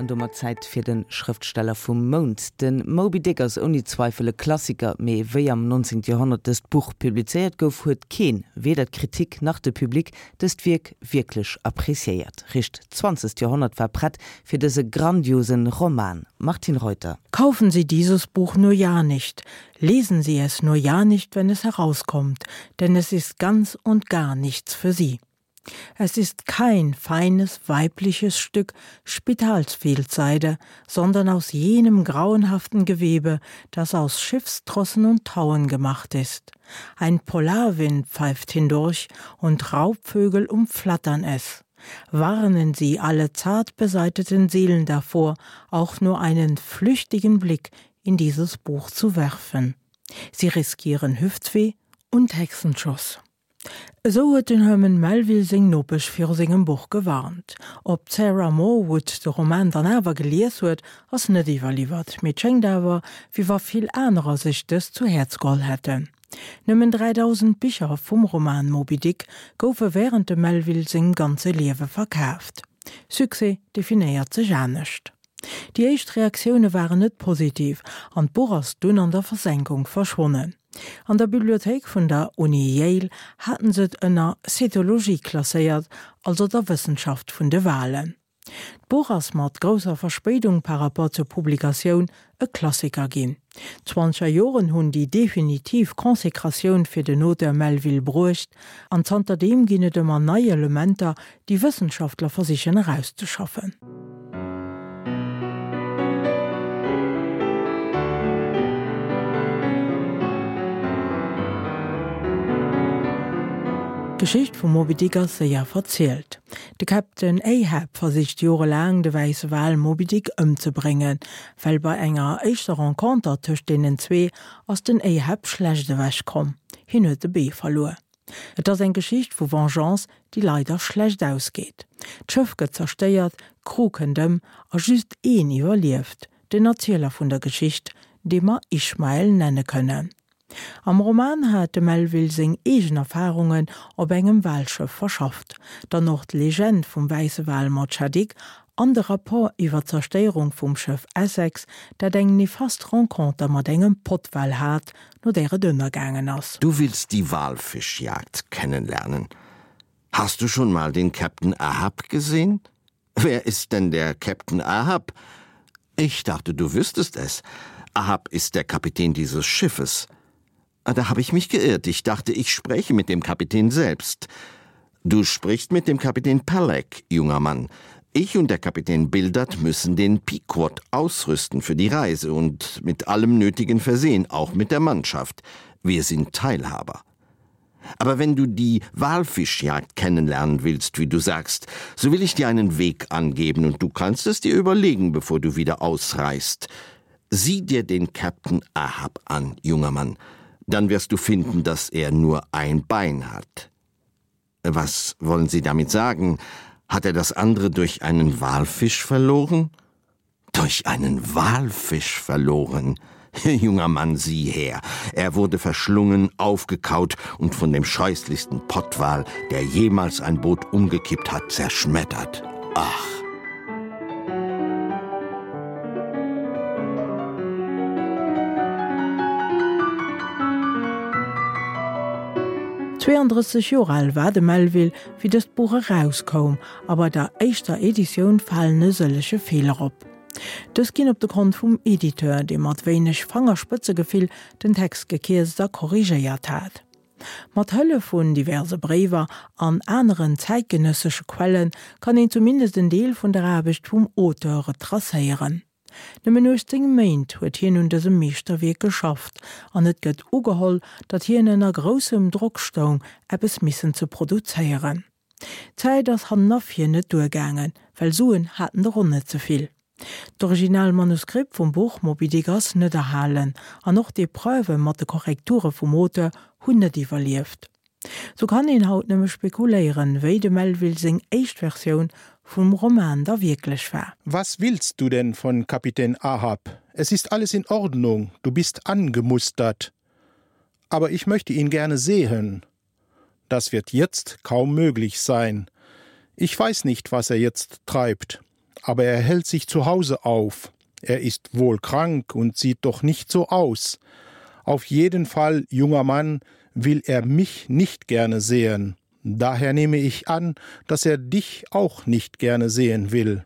An domat Zäit fir de Schrëftsteller vum Mount. De Moby Dick ass ouni Zweifel e Klassiker, mee wéi am 19. Joerhonnert dëst Buch publizéiert gouf, huet keen, weder d'Kritik nach de Public, dëst Wierk wierklech appréciéiert. Richt d'zwanzegt Joerhonnert war prett fir dëse grandiosen Roman. Martine Reuter. Kaufen Sie dieses Buch nur ja nicht, lesen Sie es nur ja nicht, wenn es herauskommt, denn es ist ganz und gar nichts für Sie. Es ist kein feines weibliches Stück Spitalsfehlseide, sondern aus jenem grauenhaften Gewebe, das aus Schiffstrossen und Tauen gemacht ist. Ein Polarwind pfeift hindurch und Raubvögel umflattern es. Warnen Sie alle zart beseiteten Seelen davor, auch nur einen flüchtigen Blick in dieses Buch zu werfen. Sie riskieren Hüftweh und Hexenschuss. Esou huet den Herman Melville seng Nopesch viru sengem Buch gewarnt. Ob d'Sarah Morwood de Roman dann awer gelies huet, ass net iwwerliwwert, mee et schéngt awer, wéi wa vill anerer sech dëst zu Häerz geholl hätten. Nëmmen 3.000 Bicher vum Roman Moby Dick goufe wärend dem Melville sengem ganze Liewe verkaaft. Succès definéiert sech anescht. Déi éischt Reaktioune waren net positiv an d'Buch ass dunn an der Versenkung verschwonnen. An der Bibliothéik vun der Uni Yale haten se et ënner Cetologie klasséiert, also der Wëssenschaft vun de Walen. D'Buch ass mat grousser Verspéidung par rapport zur Publikatioun e Klassiker ginn. D'Zwanzeger Joren hunn déi definitiv Consécratioun fir den Auteur Melville bruecht, an zanterdeem ginn et ëmmer nei Elementer, déi Wëssenschaftler versichen erauszeschaffen. D'Geschicht vum Moby Dick ass séier verzielt. De Captain Ahab versicht jorelaang de wäisse Wal Moby Dick ëmzebréngen, well bei enger éischter Renconter tëscht deenen zwee ass den Ahab schlecht ewech komm, hien huet e Bee verluer. Et ass eng Geschicht vu Vengeance, déi leider schlecht ausgeet. D'Schëff gëtt zerstéiert, d'Crew kënnt ëm a just een iwwerlieft, den Erzieler vun der Geschicht, dee mer Ishmael nenne kënnen. Am Roman hat de Melville seng eegen Erfarungen op engem Walschëff verschafft, dann och d'Legend vum wäisse Wal Mocha Dick an de Rapport iwwer d'Zerstéierung vum Schëff Essex, dat eng nefast Renconter mat engem Pottwal hat, no där et ënnergaangen ass. Du willst die Walfischjagd kennenlernen. Hast du schon mal den Captain Ahab gesehen? Wer ist denn der Captain Ahab? Ich dachte, du wüsstest es. Ahab ist der Kapitän dieses Schiffes. Ah, da habe ich mich geirrt. Ich dachte, ich spreche mit dem Kapitän selbst. Du sprichst mit dem Kapitän Palek, junger Mann. Ich und der Kapitän Bildert müssen den Pequod ausrüsten für die Reise und mit allem Nötigen versehen, auch mit der Mannschaft. Wir sind Teilhaber. Aber wenn du die Walfischjagd kennenlernen willst, wie du sagst, so will ich dir einen Weg angeben und du kannst es dir überlegen, bevor du wieder ausreist. Sieh dir den Captain Ahab an, junger Mann, dann wirst du finden, dass er nur ein Bein hat. Was wollen Sie damit sagen? Hat er das andere durch einen Walfisch verloren? Durch einen Walfisch verloren? Junger Mann, sieh her! Er wurde verschlungen, aufgekaut und von dem scheußlichsten Pottwal, der jemals ein Boot umgekippt hat, zerschmettert. Ach! 32 Joer al war de Melville, wéi dëst Buch erauskoum, a bei der éischter Editioun falen e sëllege Feeler op. Dës ginn op de Kont vum Editeur, dee mat wéineg Fangerspëtzegefill den Text gekierzt a korrigéiert hat. Mat Hëllef vun diverse Bréiwer an aneren zäitgenëssesche Quelle kann een zumindest en Deel vun der Aarbecht vum Auteur retracéieren. Nëmmen 18 Méint huet hien un dësem Meeschterwierk geschafft an et gëtt ugeholl, datt hien ënner groussem Drock stoung, eppes missen ze produzéieren. D'Zäit ass hannen a vir net duergaangen, well Suen haten der och net ze vill. D'original Manuskript vum Buch Moby Dick ass net erhalen an och d'Epreuve mat de Korrekture vum Auteur hunn net iwwerlieft. Sou kann een haut nëmme spekuléieren, wéi dem Melville seng éischt Versioun vum Roman da wierklech war. Was willst du denn von Kapitän Ahab? Es ist alles in Ordnung, du bist angemustert. Aber ich möchte ihn gerne sehen. Das wird jetzt kaum möglich sein. Ich weiß nicht, was er jetzt treibt. aber er hält sich zu Hause auf. Er ist wohl krank und sieht doch nicht so aus. Auf jeden Fall, junger Mann, will er mich nicht gerne sehen. Daher nehme ich an, dass er dich auch nicht gerne sehen will.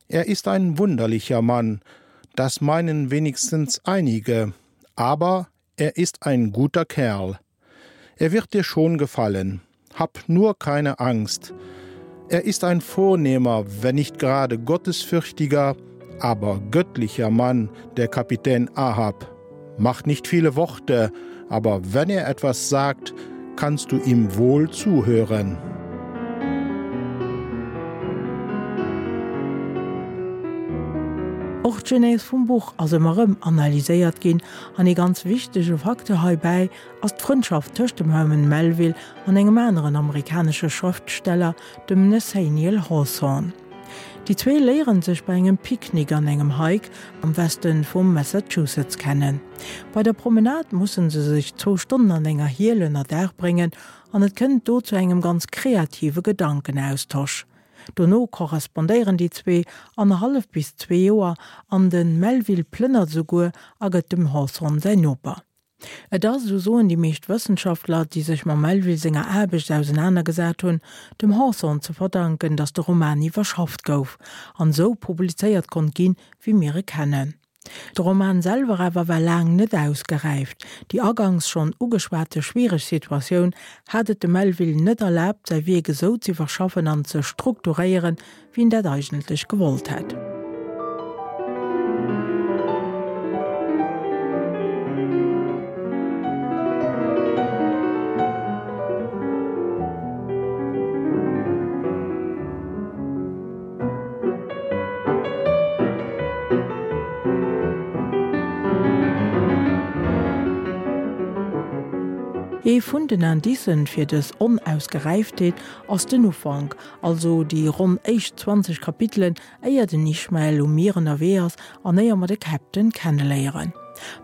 Er ist ein wunderlicher Mann, das meinen wenigstens einige, aber er ist ein guter Kerl. Er wird dir schon gefallen. Hab nur keine Angst. Er ist ein vornehmer, wenn nicht gerade gottesfürchtiger, aber göttlicher Mann, der Kapitän Ahab. Macht nicht viele Worte, aber wenn er etwas sagt, kannst du ihm wohl zuhören. Och d'Genèse vum Buch ass ëmmer erëm analyséiert ginn an ee ganz wichtege Facteur heibäi ass d'Frëndschaft tëscht dem Herman Melville an engem aneren amerikanesche Schrëftsteller, dem Nathaniel Hawthorne. Déi zwee léieren sech bei engem Picknick an engem Hike am Weste vum Massachusetts kennen. Bei der Promenade musse se sech zwou Stonnen an enger Hiel ënner Daach bréngen an et kënnt do zu engem ganz kreative Gedankenaustosch. Dono korrespondéieren déi zwee annerhallef bis zwee Joer an de Melville plënnert esouguer a gëtt dem Hawthorne säin Noper. Et ass, esou soen déi meescht Wëssenschaftler, déi sech mam Melville senger Aarbecht ausenanergesat hunn, dem Hawthorne ze verdanken, datt de Roman iwwerschafft gouf an esou publizéiert konnt ginn, wéi mir e kennen. De Roman selwer awer war laang net ausgeräift. Déi agangs schonn ugeschwate schwiereg Situatioun hat et dem Melville net erlaabt, säi Wierk esou z'iwwerschaffen an ze strukturéieren, wéi en dat eigentlech gewollt hätt. Ee vun den Indicen fir dës Onausgeräiftheet ass den Ufank, also déi ronn éischt 20 Kapitelen, éier den Ishmael um Mier ënnerwee ass an éier mer de Captain kenneléieren.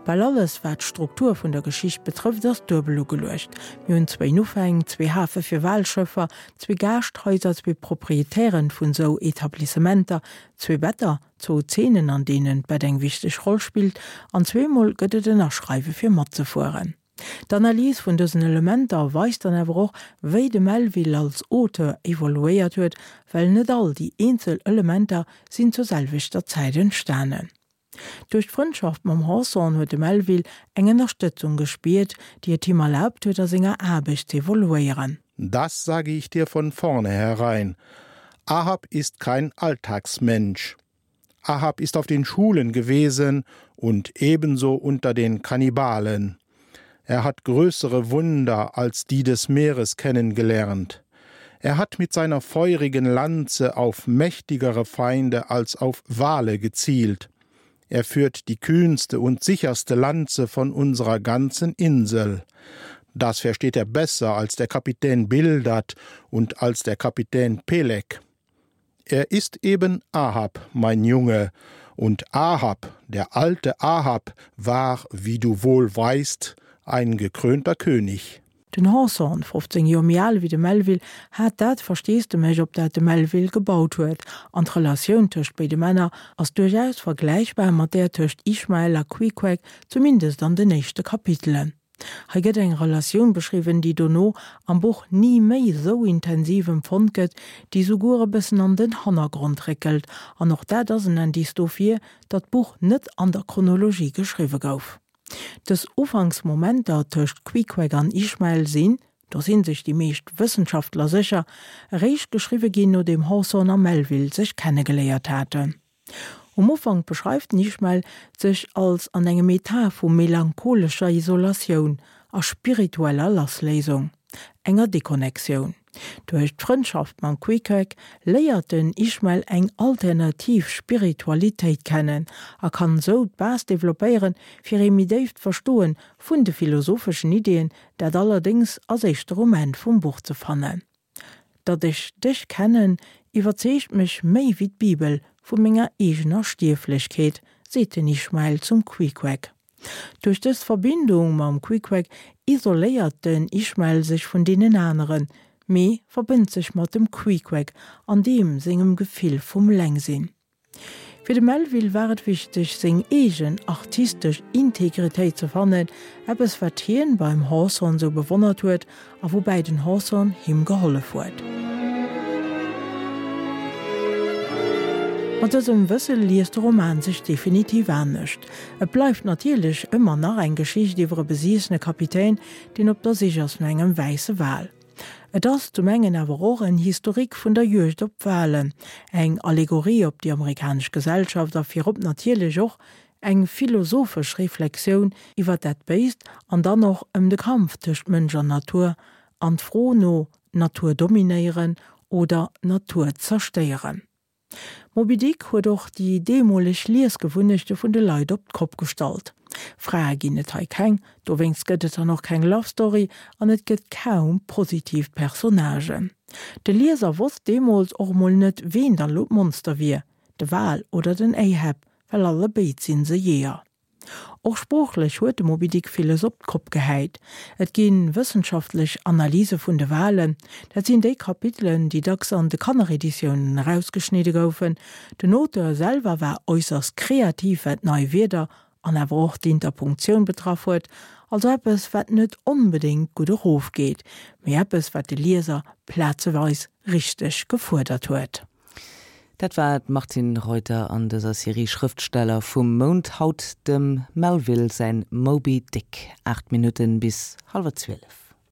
Bal alles, wat d'Struktur vun der Geschicht betrëfft, ass duebel ugeluecht. Mir hunn zwéin Ufäng, zwee Hafe fir Walschëffer, zwee Gaascht-Haiser, zwee Proprietären vun sou Etablissementer, zwee Better, zwou Zeenen an deenen d'Bett eng wichteg Roll spillt an zweemol gëtt et en Aschreiwe fir matzefueren. D'Analys vun dësen Elementer weist dann awer och, wéi de Melville als Auteur evoluéiert huet, well net all déi eenzel Elementer sinn zur selwechter Zäit entstanen. Duerch d'Frëndschaft mam Hawthorne huet de Melville eng Ënnerstëtzung gespiert, déi et him erlaabt huet, a senger Aarbecht z'evoluéieren. Das sage ich dir von vornherein. Ahab ist kein Alltagsmensch. Ahab ist auf den Schulen gewesen und ebenso unter den Kannibalen. Er hat größere Wunder als die des Meeres kennengelernt. Er hat mit seiner feurigen Lanze auf mächtigere Feinde als auf Wale gezielt. Er führt die kühnste und sicherste Lanze von unserer ganzen Insel. Das versteht er besser als der Kapitän Bildert und als der Kapitän Pelek. Er ist eben Ahab, mein Junge, und Ahab, der alte Ahab, war, wie du wohl weißt, ein gekrönter König. Den Hawthorne, 15 Joer méi al wéi de Melville, hat dat Versteesdemech, op dat de Melville gebaut huet, an d'Relatioun tëscht béide Männer ass duerchaus vergläichbar mat där tëscht Ishmael a Queequeg, zumindest an den éischte Kapitelen. Hei gëtt eng Relatioun beschriwwen, déi dono am Buch ni méi esou intensiv empfonnt gëtt, déi souguer e bëssen an den Hannergrond réckelt, an och dat ass en Indice dofir, datt d'Buch net an der Chronologie geschriwwe gouf. Dës Ufanksmomenter tëscht Queequeg an Ishmael sinn, do si sech déi meescht Wëssenschaftler sécher, eréischt geschriwwe ginn, nodeem Hawthorne a Melville sech kennegeléiert haten. Um Ufank beschreift den Ishmael sech als an engem Etat vu melancholescher Isolatioun a spiritueller Lassléisung, enger Deconnectioun. Duerch d'Frëndschaft mam Queequeg léiert den Ishmael eng alternativ Spiritualitéit kennen a kann esou d'Base developpéieren fir ee méi déift Verstoen vun de philosopheschen Ideen, dat allerdéngs ass éischter um Enn vum Buch ze fannen. Datt ech dech kennen, iwwerzeegt mech méi wéi d'Bibel vu menger eegener Stierflechkeet, seet den Ishmael zum Queequeg. Duerch dës Verbindung mam Queequeg isoléiert den Ishmael sech vun deenen aneren. mee verbënnt sech mat dem Queequeg an deem sengem Gefill vum Lengsinn. Fir de Melville war et wichteg, seng eegen artistesch Integritéit ze fannen, eppes wat hien beim Hawthorne sou bewonnert huet a woubäi den Hawthorne him gehollef huet. Mat dësem Wësse liest de Roman sech definitiv anescht. Et bleift natierlech ëmmer nach eng Geschicht iwwer e besiessene Kapitän, deen op der Sich ass no engem wäisse Wal. Et ass zum engen awer och en Historique vun der Juegd op d'Walen, eng Allegorie op déi amerikanesch Gesellschaft a virop natierlech och eng philosophesch Reflexioun iwwer dat Béist an dann och ëm de Kampf tëscht Mënsch an Natur an d'Fro no Natur dominéieren oder Natur zerstéieren. Moby Dick huet och déi deemoleg Liesgewunnechte vun de Leit op d'Kopp gestallt. Frae ginn et hei keng, dowéinst gëtt et dann och keng Love Story an et gëtt kaum positiv Personnagen. De Lieser wosst deemools och emol net ween dann elo d'Monster wier, de Wal oder den Ahab, well allebéid sinn se Jeeër. Och sproochlech huet de Moby Dick villes op d'Kopp gehäit. Et gi wëssenschaftlech Analyse vun de Walen, dat sinn déi Kapitelen, déi dacks an de Kannereditiounen erausgeschnidde goufen. Den Auteur selwer war äusserst kreativ, wat nei Wierder an awer och d'Interpunktioun betraff huet, also eppes, wat net onbedéngt gutt erofgeet, mee eppes, wat de Lieser plazeweis richteg gefuerdert huet. Dat war d'Martine Reuter an dëser Serie Schrëftsteller vum Mount, haut dem Melville säin Moby Dick. 8 Minutten bis hallwer 12.